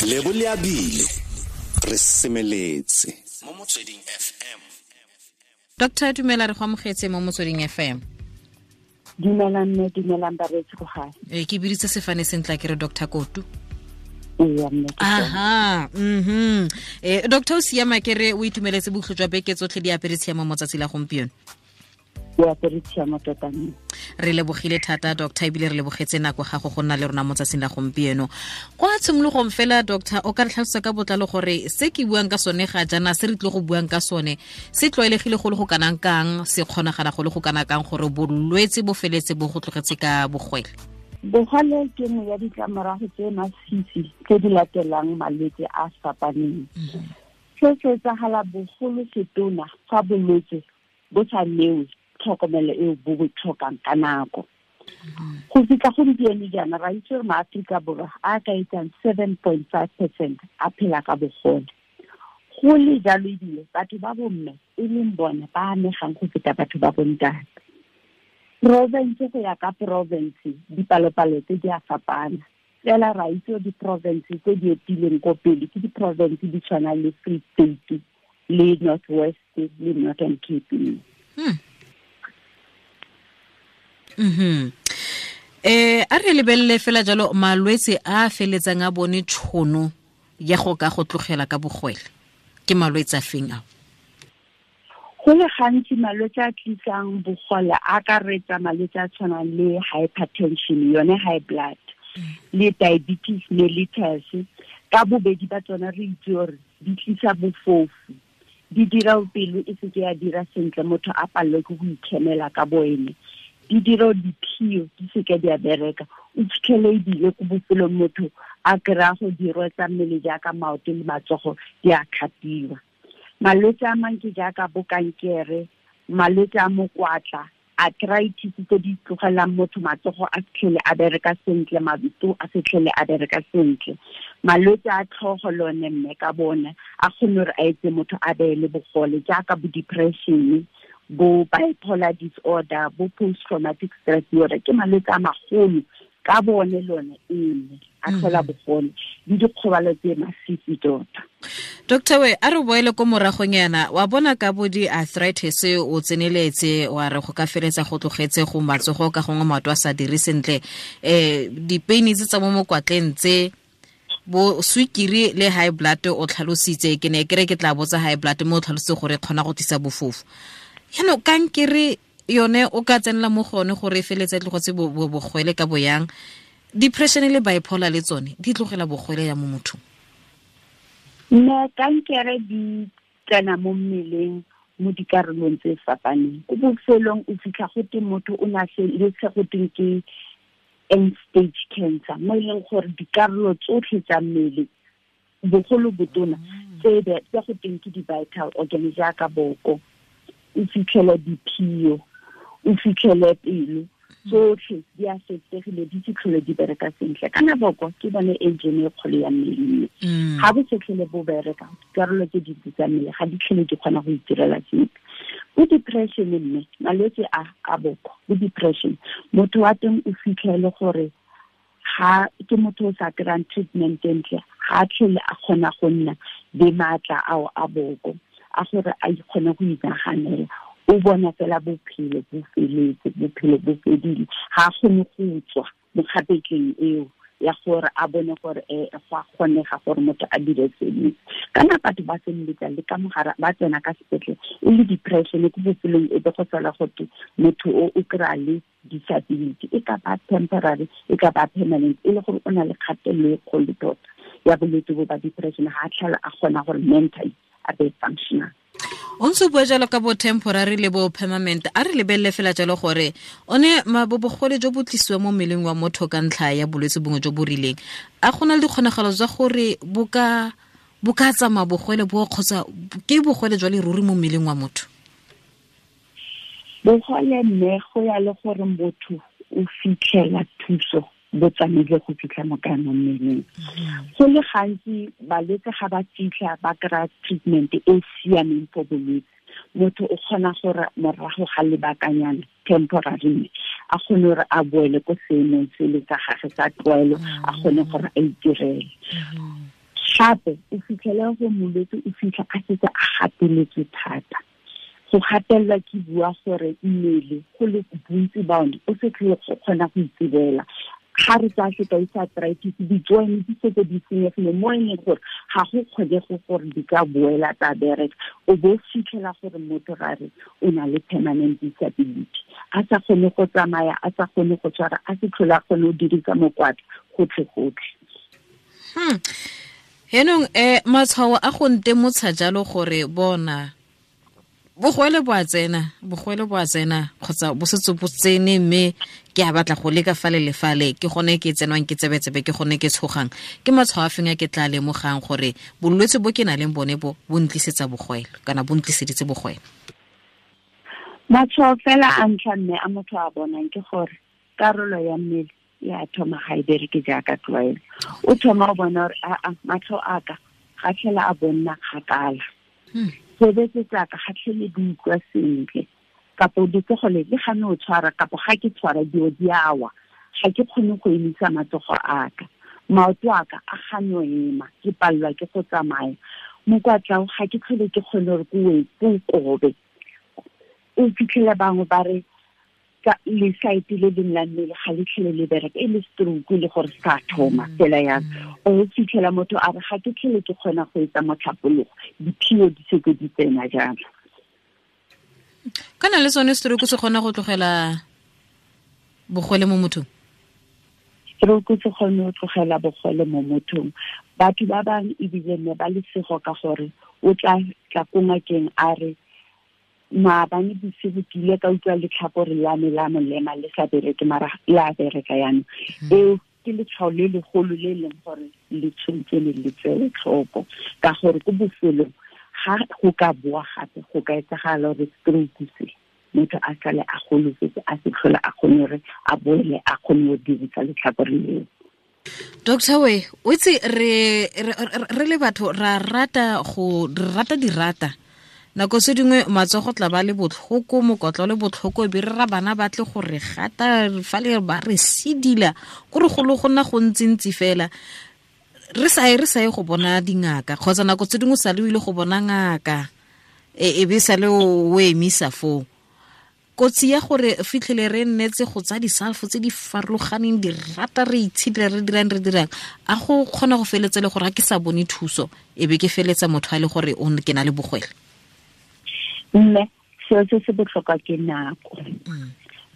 Lebo le abile re semeletse mo Motsweding FM. Doctor, dumela, re go amogetse mo Motsweding FM. Dumelang mme, dumelang bareetsi ko gae. Ee, ke biditse sefane sentle ke re Dr. Kotu. Ee, mme, ke sone. Aha, Doctor, o siama ke re o itumeletse bokhutlo jwa beke tsotlhe di apere tshiamo mo tsatsi la gompieno? O apere tshiamo tota mme. Re lebogile thata doctor, ebile re lebogetse nako gago go nna le rona mo tsatsing la gompieno. Kwa tshimologong fela doctor, o ka re tlhalosa ka botlalo gore se ke buang ka sone ga jaana, se re tlile go buang ka sone, se tlwaelegile go le go kanang kang, se kgonagala go le go kana kang gore bolwetse bo feletse bo go tlogetse ka bogwele? Bogole ke nngwe ya ditlamorago tse masisi tse di latelang malwetse a fapaneng. Se se etsagala bogolo setona fa bolwetse bo sa newe tlhokomelo eo bo bo tlhokang ka nako. Go fitlha gompieno jaana ra itse gore maAforika Borwa a ka etsang 7.5% a phela ka bogole. Go le jalo ebile batho ba bomme e leng bone ba amegang go feta batho ba bontate. Province go ya ka province dipalopalo tse di a fapana. Fela ra itse gore di-province tse di etileng ko pele ke di-province di tshwana le Free State le North West le Northern Cape. A re lebelele fela jalo malwetse a feletsang a bone tšhono ya go ka go tlogela ka bogwele, ke malwetse a feng ao? Go le gantsi malwetse a tlisang bogole a akaretsa malwetse a tshwanang le hypertension, yone high blood, le diabetes mellitus. Ka bobedi ba tsona re itse gore di tlisa bofofu, di dira pelo e seke ya dira sentle, motho a palelwe ke go ikemela ka boene, di dira diphio di seke di a bereka, o fitlhele ebile ko bofelong motho a kry-a go dirwa tsa mmele jaaka maoto le matsogo di a kgapiwa. Malwetse a mang ke jaaka bo kankere, malwetse a mokwatla, arthritis tse di tlogelang motho matsogo a fitlhele a bereka sentle, maoto a fitlhele a bereka sentle. Malwetse a tlhogo lone mme ka bone a kgone gore a etse motho a be le bogole jaaka bo depression, bo bipolar disorder, bo post-traumatic stress disorder, ke malwetse a magolo ka bone lone ene a tlhola bogole le dikgobalo tse masisi tota. Doctor we, a re boele ko moragong yana, wa bona ka bo di-arthritis o tseneletse wa re go ka feletsa go tlogetse go matsogo ka gongwe maoto a sa dire sentle, dipeini tse tsa mo mokwatleng tse bo swikiri le high blood o tlhalositse, ke ne ke re ke tla botsa high blood mo o tlhalositse gore e kgona go tlisa bofofu. Jaanong kankere yone o ka tsenela mo go yone gore e feletse tlogetse bogwele ka boyang, depression le bipolar le tsone di tlogela bogwele ya mo mothong? Mme kankere di tsena mo mmeleng mo dikarolong tse fapaneng. Ko bofelong o fitlha go te motho o na le se go teng ke end stage cancer, mo e leng gore dikarolo tsotlhe tsa mmele bogolo botona tse go teng ke di-vital organs jaaka boko, o fitlhele diphio, o fitlhele pelo, tsotlhe di a fetsegile, di se tlhole di bereka sentle. Kana boko ke bone engine e kgolo ya mmele. Ga bo se tlhole bo bereka, dikarolo tse dintsi tsa mmele ga di tlhole di kgona go itirela sepe. Bo depression mme, malwetse a boko, bo depression, motho wa teng o fitlhele gore ga ke motho o sa kry-ang treatment entle, ga a tlhole a kgona go nna le maatla ao a boko a gore a ikgone go inaganela. O bona fela bophelo bo feletse, bophelo bo fedile, ga a kgone go tswa mo kgapetleng eo ya gore a bone gore go a kgonega gore motho a dire sengwe. Kana batho ba feleletsa le ka mogare ba tsena ka sepetlele e le depression, ko bofelong e be go sala gote motho o o kry-a le disability, e ka ba temporary, e ka ba permanent, e le gore o na le kgatelelo e kgolo tota ya bolwetse bo ba depression, ga a tlhola a kgona gore mentally a be functional. O ntse o bua jalo ka bo temporary le bo permanent, a re lebelele fela jalo gore one bogole jo bo tlisiwa mo mmeleng wa motho ka ntlha ya bolwetse bongwe jo bo rileng, a go na le dikgonagalo tsa gore bo ka tsamaya bogole bo kgotsa ke bogole jwa leruri mo mmeleng wa motho? Bogole mme go ya le gore motho o fitlhela thuso bo tsamaile go fitlha mo kae mo mmeleng. Go le gantsi balwetse ga ba fitlha ba kry-a treatment e siameng for bolwetse, motho o kgona gore morago ga lebakanyana temporary a kgone gore a boele ko seemong se le sa gagwe sa tlwaelo, a kgone gore a itirele. Gape o fitlhela go molwetse o fitlha a setse a gateletswe thata. Go gatelelwa ke bua gore mmele go le bontsi ba one o se tlhole go kgona go itsebela. Ga re tsaya sekai sa arthritis, di-joint di setse di senyegile mo e leng gore ga go kgonege gore di ka boela tsa bereka. O bo fitlhela gore motho ga re o na le permanent disability, a sa kgone go tsamaya, a sa kgone go tshwara, a se tlhole a kgone go dirisa mokwatla gotlhe-gotlhe. Henong matshwao a go ntemotsha jalo gore bona bogwele bo a tsena, bogwele bo a tsena kgotsa bo setse bo tsene mme ke a batla go leka fale le fale, ke gone ke tsenwang ke tsebetsebe, ke gone ke tshogang, ke matshwao a feng a ke tla lemogang gore bolwetse bo ke nang le bone bo bo ntlisetsa bogwele kana bo ntliseditse bogwele? Matshwao fela a ntlha mme a motho a bonang ke gore karolo ya mmele ya thoma ga e bereke jaaka tlwaelo. O thoma o bona gore aa matlho a ka ga tlhela a bonna kgakala, sebetse tsaka ga tlhele di utlwa sentle, kapo letsogo le le gane o tshwara, kapo ga ke tshwara dio di awa, ga ke kgone go emisa matsogo a ka, maoto a ka a gane o ema, ke palelwa ke go tsamaya, mokwatla ga ke tlhole ke kgone gore ke o kobe. O fitlhela bangwe ba re le saete le leng la mmele ga le tlhele le bereka, e le stroke le gore sa thoma fela yang. O fitlhela motho a re ga ke tlhele ke kgona go etsa motlhapologo, diphio di setse di tsena jalo. Kana le sone stroke se kgona go tlogela bogole mo mothong? Stroke se kgone go tlogela bogole mo mothong. Batho ba bangwe ebile ne ba lesego ka gore o tla tla ko ngakeng a re maabane bosigo ke ile ka utlwa letlhakore la me la molema le sa bereke, mara la bereka yanong. Eo ke letshwao le legolo le leng gore le tshwanetse le le tsewe tlhoko, ka gore ko bofelong ga go ka boa gape go ka etsagala gore stroke se motho a sale a golofetse, a se tlhole a kgone gore a boele a kgone go dirisa letlhakore leo. Doctor we, o itse re le batho ra rata go re rata dirata. Nako se dingwe matsogo tla ba le botlhoko, mokotlo le botlhoko, be re ra bana ba tle go re gata fa le ba re sidila, go re golo go nna go ntsintsi fela. Re sa ye go bona dingaka, kgotsa nako tse dingwe sa le o ile go bona ngaka, e be sa le o emisa foo. Kotsi ya gore fitlhele re nnetse go tsa disalfo tse di farologaneng, di rata re itshidila, re dirang, a go kgona go feletsa le gore ga ke sa bone thuso, e be ke feletsa motho a le gore o ke na le bogwele? Mme seo se se botlhokwa ke nako.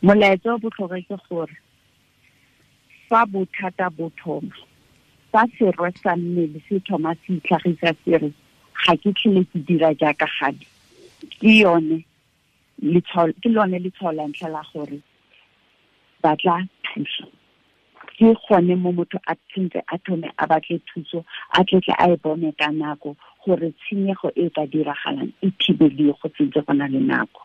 Molaetsa o botlhokwa ke gore fa bothata bo thoma, fa serwe sa mmele se thoma se itlhagisa se re ga ke tlhole ke dira jaaka gale, ke yone ke lone letshwao la ntlha la gore batla thuso. Ke gone mo motho a tshwanetse a thome a batle thuso, a tletle a e bone ka nako gore tshenyego e ka diragalang e thibeliwe go sentse go na le nako.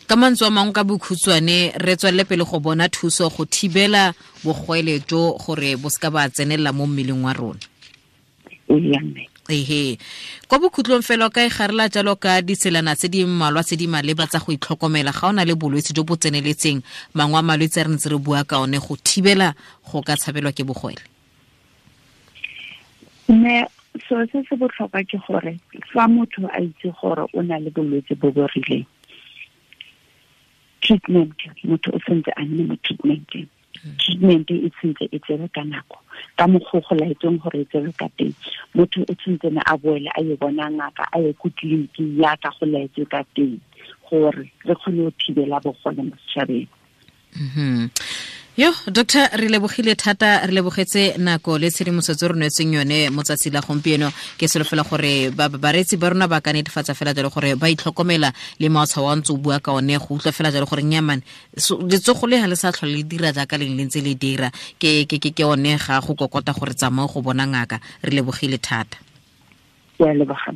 Ka mantswe a mangwe ka bokhutshwane, re tswelele pele go bona thuso go thibela bogwele jo gore bo seka ba tsenelela mo mmeleng wa rona. Ehe. Kwa bokhutlong fela ka e garela jalo ka ditselana tse di mmalwa tse di maleba tsa go itlhokomela ga o na le bolwetse jo bo tseneletseng, mangwe a malwetse a re ntse re bua ka one go thibela go ka tshabelwa ke bogwele. Mme seo se se botlhokwa ke gore fa motho a itse gore o na le bolwetse bo bo rileng, treatment, motho o sentse a nne mo treatmenteng. Treatment e tshwanetse e tsewe ka nako, ka mokgwa go laetsweng gore e tsewe ka teng. Motho o tshwanetse ne a boele a ye bona ngaka, a ye ko tleliniking yaka go laetswe ka teng, gore re kgone go thibela bogole mo setšhabeng. Yo, doctor, re lebogile thata, re lebogetse nako le tshedimosetso re nwetseng yone mo tsatsi la gompieno. Ke solofela gore bareetsi ba rona ba ka netefatsa fela jalo gore ba itlhokomela le matshwao a ntse o bua ka one, go utlwa fela jalo gore nnyamane letsogo le ga le sa tlhole le dira jaaka leng le ntse le dira, ke one ga go kokota gore tsamao go bona ngaka. Re lebogile thata. Ke a leboga.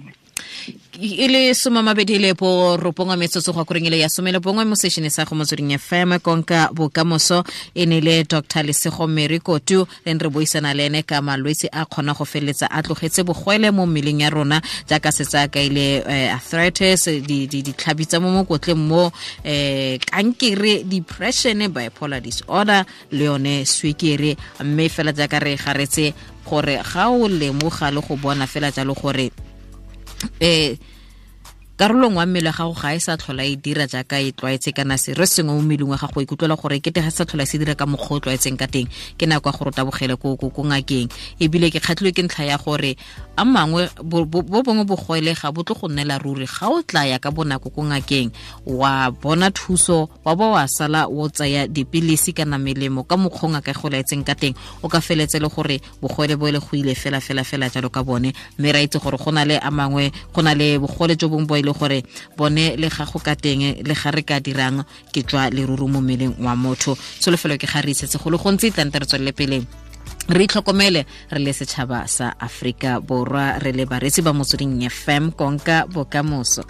E le 29 metsotso go akoreng ile ya 11 mo sešene sa go Motsweding FM konka bokamoso. E ne le Dr. Lesego Mary Kotu le re buisana le ene ka malwetse a kgona go feletsa a tlogetse bogwele mo mmeleng ya rona, jaaka setsa ka ile arthritis, ditlhabi tsa mo mokotleng mo, kankere, depression, bipolar disorder le yone swekere. Mme fela jaaka re garetse Gore ga o lemoga le go bona fela jalo gore karolo nngwe ya mmele wa gago ga e sa tlhola e dira jaaka e tlwaetse, kana se re sengwe mo mmeleng wa gago ikutlwela gore kete ga sa tlhola se dira ka mokgwa o tlwaetseng ka teng, ke nako ya gore o tabogele ko ngakeng. Ebile ke kgatlhilwe ke ntlha ya gore a mangwe bo bongwe bogole ga bo tlo go nnela ruri. Ga o tla ya ka bonako ko ngakeng wa bona thuso, wa ba wa sala o tsaya dipilisi kana melemo ka mokgwa o ngaka e go laetseng ka teng, o ka feletse le gore bogole bo le go ile fela fela fela jalo ka bone. Mme ra itse gore go na le a mangwe, go na le bogole jo bongwe bo ile gore bone le ga go ka teng le ga re ka dirang ke tswa leruru mo mmeleng wa motho. Tsholofelo ke ga re isetse go le gontsi, tlante re tswelele pele re itlhokomele re le setšhaba sa Afrika Borwa, re le bareetsi ba Motsweding FM, konka bokamoso.